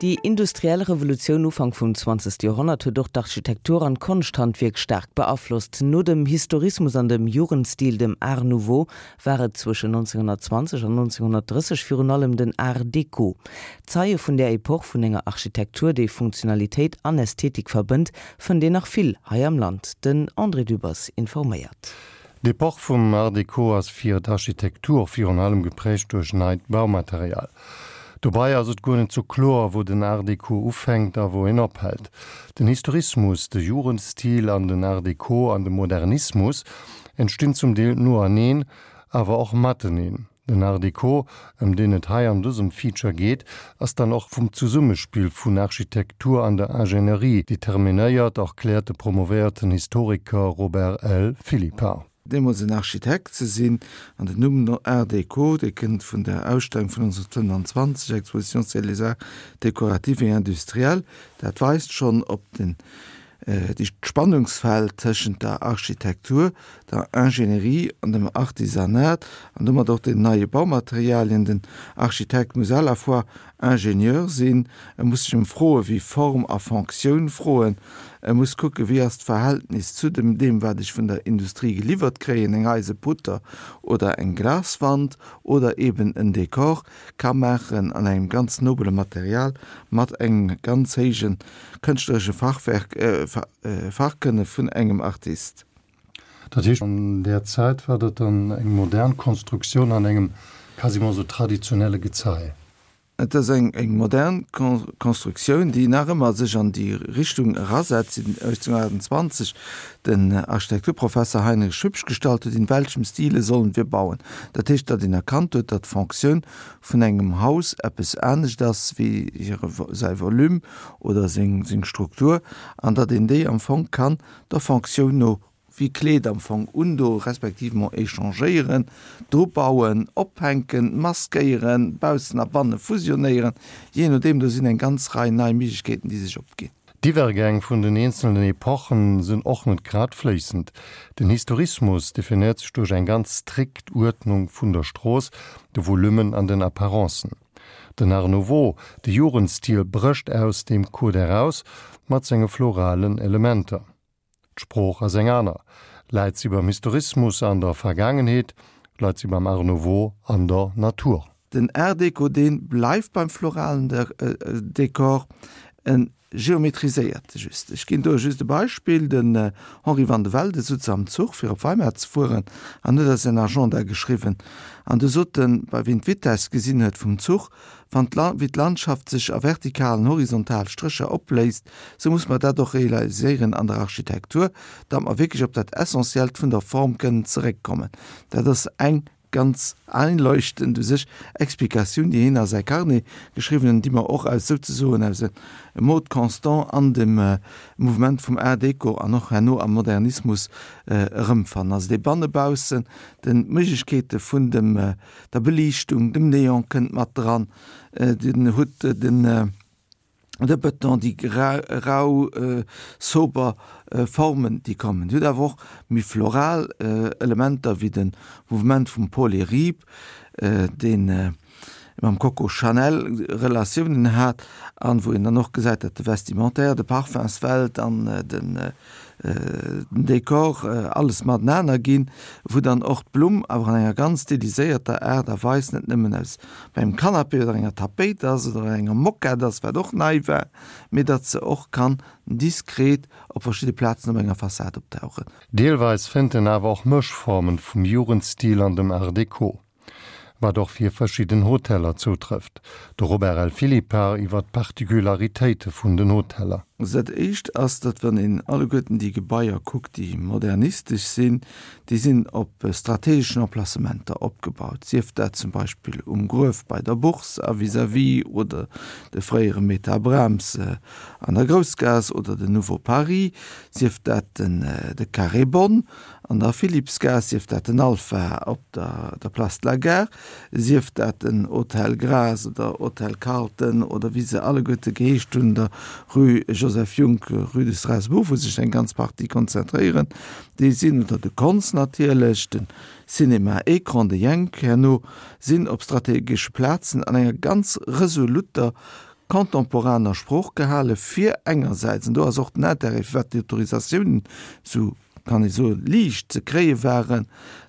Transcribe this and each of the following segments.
Déi industriell Revolutioun Ufank vum 20. Joerhonnert huet och d'Architektur an d'Konschthandwierk staark beaflosst. No dem Historismus an dem Jugendstil, dem Art Nouveau, war et zwëschen 1920 an 1930 virun allem den Art Déco. Zeie vun där Epoch vun enger Architektur, déi Funktionalitéit an Ästhetik verbënnt, fënnt een nach vill hei am Land. Den André Dübbers informéiert. D'Epoch vum Art Déco ass fir d'Architektur virun allem geprägt duerch neit Baumaterial. Dobei ass et guer net sou kloer, wou den Art Déco ufänkt a wou en ophält. Den Historismus, de Jugendstil an den Art Déco an de Modernismus entstinn zum Deel noeneen, awer och mateneen. Den Art Déco, ëm deen et hei an dësem Feature geet, ass dann och vum Zesummespill vun Architektur an der Ingénierie determinéiert, erkläert de promovéierten Historiker Robert L. Philippart. Deemools en Architekt ze sinn, an den Numm Art Déco, dee kënnt vun der Ausstellung vun 1925, Exposition sur les arts décoratifs et industriels, dat weist schonn op den déi d'Spannungsfeld tëschent der Architektur, der Ingénierie an dem Artisanat an domat och den neie Baumaterialien. Den Architekt muss à la fois Ingenieur sinn, e muss sech ëm Froe wéi Form a Fonctioun froen, e muss kucken, wéi ass d'Verhältnis zu dem deem, wat ech vun der Industrie geliwwert kréien, eng Eiseputter oder eng Glaswand oder eben en Dekor ka maachen an engem ganz nobele Material mat engem ganz héije kënschtleresche Fachwerk, Fachkënne vun engem Artist. Dat heescht, an där Zäit war dat dann eng modern Konstruktioun an engem quasiment esou traditionelle Gezei. Et ass eng modern Konstruktioun, déi nach ëmmer sech an déi Richtung erasetzt, déi 1828 den Architekturprofesser Heinrich Hübsch gestallt huet, In welchem Stile sollen wir bauen? Dat heescht, datt een erkannt huet, datt d'Fonctioun vun engem Haus eppes anescht ass wéi hire säi Volume oder seng Struktur an datt een déi am Fong kann der Fonctioun no wéi Kleed am Fong undo respektivement échangéieren, dru bauen, ophänken, maskéieren, baussen a banne fusionéieren, jee nodeem. Do sinn eng ganz Rei nei Méiglechkeeten, déi sech opginn. D'Iwwergäng vun den eenzelnen Epochen sinn och net grad fléissend. Den Historismus definéiert sech duerch eng ganz strikt Uerdnung vun der Strooss, de Volummen an den Apparencen. Den Art Nouveau, de Jugendstil, brécht aus deem Code eraus mat senge floralen Elementer. D'Sprooch ass eng aner. Läit si beim Historismus an der Vergaangenheet, leit si beim Art Nouveau an der Natur. Den Art Déco, dee bleift beim floralen Dekor, en geometriséiert just. Ech ginn do just e Beispill, Den Henri van de Velde sutz am Zuch fir op Weimar ze fueren an huet a säin Agenda geschriwwen an du sot en, bei wien d'Vitess gesinn huet vum Zuch, Wann wéi d'Landschaft sech a vertikal an horizontal Strécher opléist, sou muss mer dat och realiséieren an der Architektur, datt mer wierklech op dat Essentiellt vun der Form kënnen zeréckkommen. Dat ass eng ganz einleuchtend u sech Explikatioun, déi hien a säi Carnet geschriwwen huet an déi mer och aus souzesoen aus e Mode constant an dem Mouvement vum Art déco an och herno am Modernismus erëmfannen. Also dee Banne-Baussen, den d'Méiglechkeete vun dem der Beliichtung, dem Neon kënnt mat dran, den hutt den de Bëton, déi rau sober Formen déi kommen. Dir hutt awer och méi floral Elementer wéi de Mouvement vum Paul Iribe, deen mam Coco Chanel Relatiounen hat an wou een dann och gesäit, datt de Vestimentaire, de Parfumswelt an den den Dekor, alles matenaner ginn, wou dann och d'Blumm awer an enger ganz stiliséierter Aart a Weis net nëmmen aus bei engem Canapé oder enger Tapéit ass oder enger Moquette ass, wat och nei war, mee datt se och kann diskret op verschidde Plazen op enger Fassad optauchen. Deelweis fënnt en awer och Mëschformen vum Jugendstil an dem Art Deco. Wat och fir verschidden Hoteller zoutrëfft. De Robert L. Philippart iwwer d'Particularitéite vun den Hoteller. Also dat éischt ass, datt wann een alleguerten déi Gebaier kuckt, déi modernistesch sinn, déi sinn op strategeschen Emplacementer opgebaut, sief dat zum Beispill um Gruef bei der Bourse a vis-à-vis oder de fréiere Meta Brahms an der Groussgaass oder den Nouveau Paris, sief dat den de Carré Bonn An der Philippsgaass, sief dat den Alpha op der Place de la Gare, sief dat den Hotel Graas oder Hotel Carlton oder wéi se alleguerte geheescht hunn, der Rue Joseph Junck, Rue de Strasbourg, wou sech eng ganz Partie konzentréieren, déi sinn, oder de Konz natierlech, de Cinéma Écran, de Jenk herno, sinn op strategesche Plazen an enger ganz resoluter. contemporaner Sprooch gehale fir engersäits, an do ass och den Intérêt, firwat déi Autorisatiounen esou, kann ee soen, liicht ze kréie waren,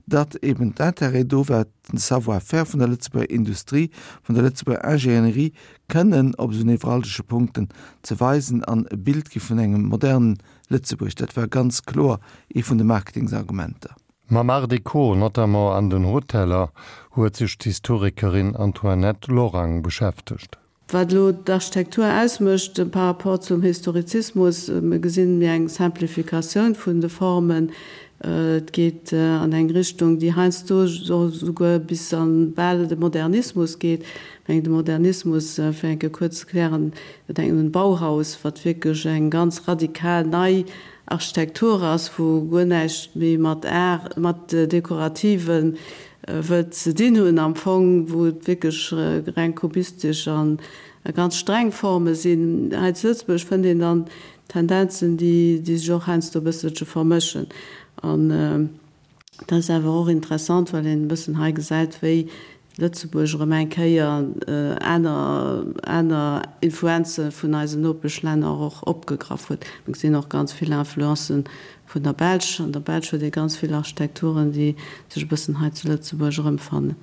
datt eben d'Intérêt do war, den Savoir-faire vun der Lëtzebuerger Industrie, vun der Lëtzebuerger Ingénierie kënnen op esou nevralgesche Punkten ze weisen an e Bild gi vun engem modernen Lëtzebuerg. Dat war ganz kloer ee vun de Marketingsargumenter. Mam Art Deco, notamment an den Hoteller, huet sech d'Historikerin Antoinette Lorang beschäftegt. Wat elo d'Architektur ausmécht par rapport zum Historizismus, mir gesinn méi eng Simplificatioun vun de Formen. Et geet an eng Richtung, déi heiansdo souguer bis an bal de Modernismus geet. Ech mengen de Modernismus, fir eng Kéier kuerz ze klären, do denkt een un d'Bauhaus, wat wierklech eng ganz radikal nei Architektur ass, wou guer näischt méi mat Art, mat Dekorativen wëllt ze dinn hunn am Fong, wou et wierklech reng kubistesch a ganz streng Forme sinn. Hei zu Lëtzebuerg fënnt een dann Tendenzen, déi sech och heiansdo e bësselche vermëschen. An dat ass awer och interessant, well een e bëssen hei gesäit, wéi Lëtzebuerg erëm eng Kéier aner aner Influenze vun eisen Nopeschlänner och opgegraff huet. Mir gesinn och ganz vill Influencen vun der Belsch. An der Belsch huet ee ganz vill Architekturen, déi sech e bëssen hei zu Lëtzebuerg erëmfannen.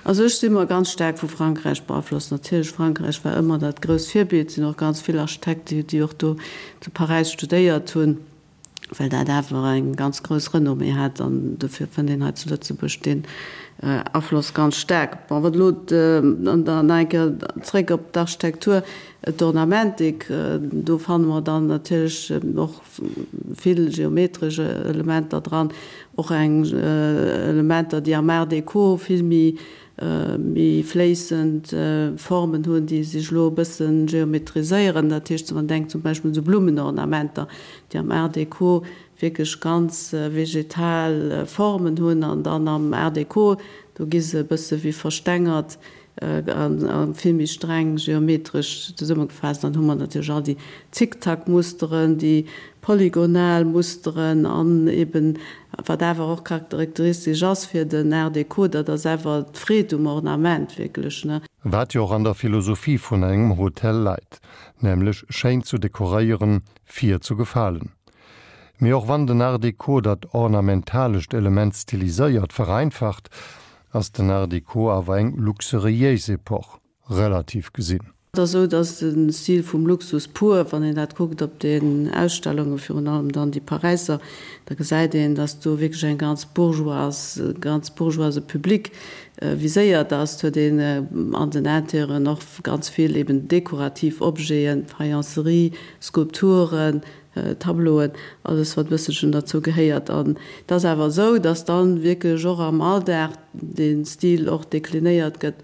Also ech si mer ganz staark vu Frankräich beaflosst. Natierlech, Frankräich war ëmmer dat grousst Virbild. Et sinn och ganz vill Architekte, déi och do zu Paräis studéiert hunn. well dat awer eng ganz grouss Renommée hat an dofir fënnt een hei zu Lëtzebuerg deen Afloss ganz staark. Bon, wat elo, an dann nach eng Kéier zréck op d'Architektur, d'Ornamentik, do fanne mer dann natierlech och vill geometresch Elementer dran, och eng Elementer, déi am Art déco vill méi méi fléissend Formen hunn, déi sech elo e bësse geometriséieren. Dat heescht, wann een denkt zum Beispill un esou Blummenornamenter, déi am Art déco wierklech ganz vegetal Formen hunn an dann am Art déco, do gi se e bësse wéi verstengert a vill méi streng geometresch zesummegefaasst. Dann hu mer natierlech all déi Zickzackmusteren, déi polygonal Musteren an eben Wat awer och charakteristesch ass fir den Art Déco, dat ass awer d'Freed um Ornament wierklech, ne? Wat jo och an der Philosophie vun engem Hotel leit, nämlech schéin zu dekoréieren, fir zu gefalen. Mee och wann den Art Déco dat ornamentalescht Element stiliséiert vereinfacht, ass den Art Déco awer eng luxuriéis Epoch. Relativ gesinn. Et ass esou, datt de Stil vum Luxus pur, wann een dat kuckt op den Ausstellungen, virun allem dann déi Paräisser, da gesäit een, datt do wierklech eng ganz bourgeoise, ganz bourgeoise Public viséiert ass. Et huet een an den Intérieuren och ganz vill eben dekorativ Objeten, Faïencerie, Skulpturen, Tableauen, alles wat e bësselchen derzou gehéiert. An et ass awer esou, datt dann wierklech och am Alldag dee Stil och deklinéiert gëtt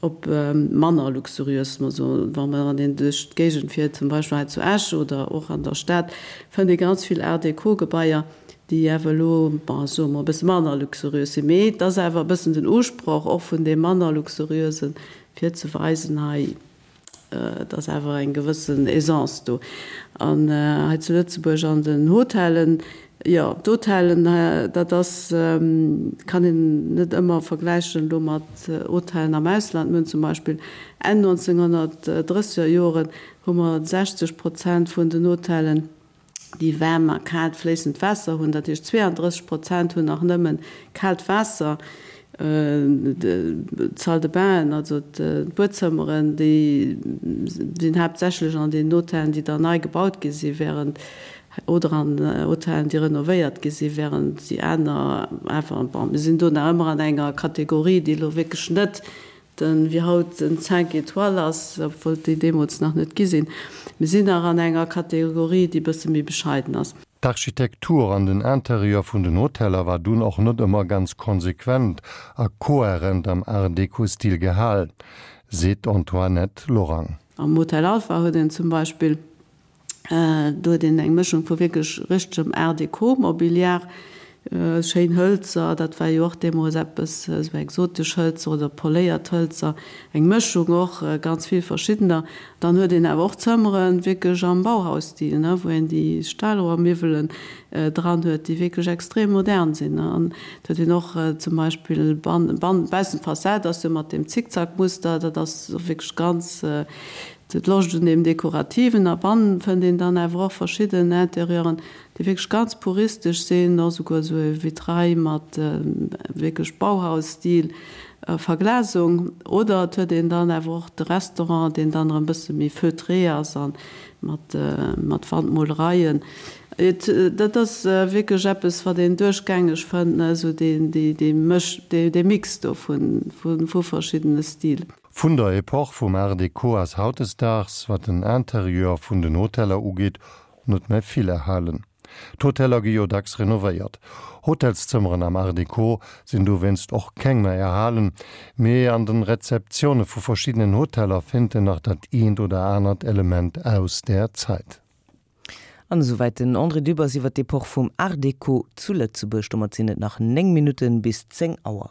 op manner luxuriös, mer soen, wa mer an een duerch d'Géigend fiert, zum Beispill hei zu Esch oder och an der Stad, fënnt ee ganz vill Art-déco-Gebaier, déi awer elo, bon, soe mer, e bësse manner luxuriös sinn. Mee et ass awer e bëssen den Usproch och vun deem manner luxuriösen, fir ze weisen, hei, Et ass awer eng gewëssen Aisance do. An hei zu Lëtzebuerg an den Hotellen, jo, d'Hotellen, dat ass, kann een net ëmmer vergläichen elo mat Hotellen am Ausland. Mir hunn zum Beispill Enn 1930er Joren hu mer 60 Prozent vun den Hotellen, déi waarm a kaalt fléissend Waasser hunn, dat heescht 32 Prozent hunn nach nëmme kaalt Waasser. D'Salle de bainen, also d'Buedzëmmeren, déi sinn haaptsächlech an den Hotellen, déi dann nei gebaut gi si während, oder an Hotellen, déi renovéiert gi si während déi aner awer, bon, mir sinn do nach ëmmer an enger Kategorie, déi elo wierklech net Den, wéi haut den Cinq étoiles ass, obwuel et déi deemools nach net gi sinn. Mir sinn nach an enger Kategorie, déi e bësse méi bescheiden ass. D'Architektur an den Interieur vun den Hoteller war dunn och net ëmmer ganz konsequent a kohärent am Art-Deco-Stil gehalen, seet d'Antoinette Lorang. Am Hotel Alpha huet een zum Beispill Do huet een eng Mëschung vu wierklech richtegem Art Déco Mobiliar, schéin Hëlzer, dat war jo och deemools eppes, esou exotesch Hëlzer oder poléiert Hëlzer, eng Mëschung och, ganz vill verschiddener. Dann huet een awer och Zëmmeren wierklech am Bauhausstil, ne, wou een déi Stahlrohrmiwwelen dran huet, déi wierklech extrem modern sinn. An et huet een och zum Beispill ban, baussent d'Fassad ass jo mat deem Zickzackmuster, dat ass wierklech ganz. d'Loscht un deem Dekorativen. A bannen fënnt een dann awer och verschidden Interieuren, déi wierklech ganz puristesch sinn, och esouguer esou e Vitrail mat wierklech Bauhaus-Stil Verglasung. Oder et huet een dann awer och de Restaurant, deen dann erëm e bësse méi feutré ass a mat mat Wandmolereien. Et dat ass wierklech eppes, wat een duerchgängeg fënnt, ne, esou deen dee dee Mësch dee dee Mix do vun vu vu verschiddene Stil. Vun der Epoch vum Art Deco ass hautdesdaags, wat den Interieur vun den Hoteller ugeet, net méi vill erhalen. D'Hoteller gi jo dacks renovéiert. Hotelszëmmeren am Art Deco sinn dowéinst och keng méi erhalen, mee an den Rezeptioune vu verschiddenen Hoteller fénnt en nach dat eent oder anert Element aus där Zäit. An esouwäit den André Dübbers iwwer d'Epoch vum Art Deco zu Lëtzebuerg. Domat sinn et nach 9 Minutten bis 10 Auer.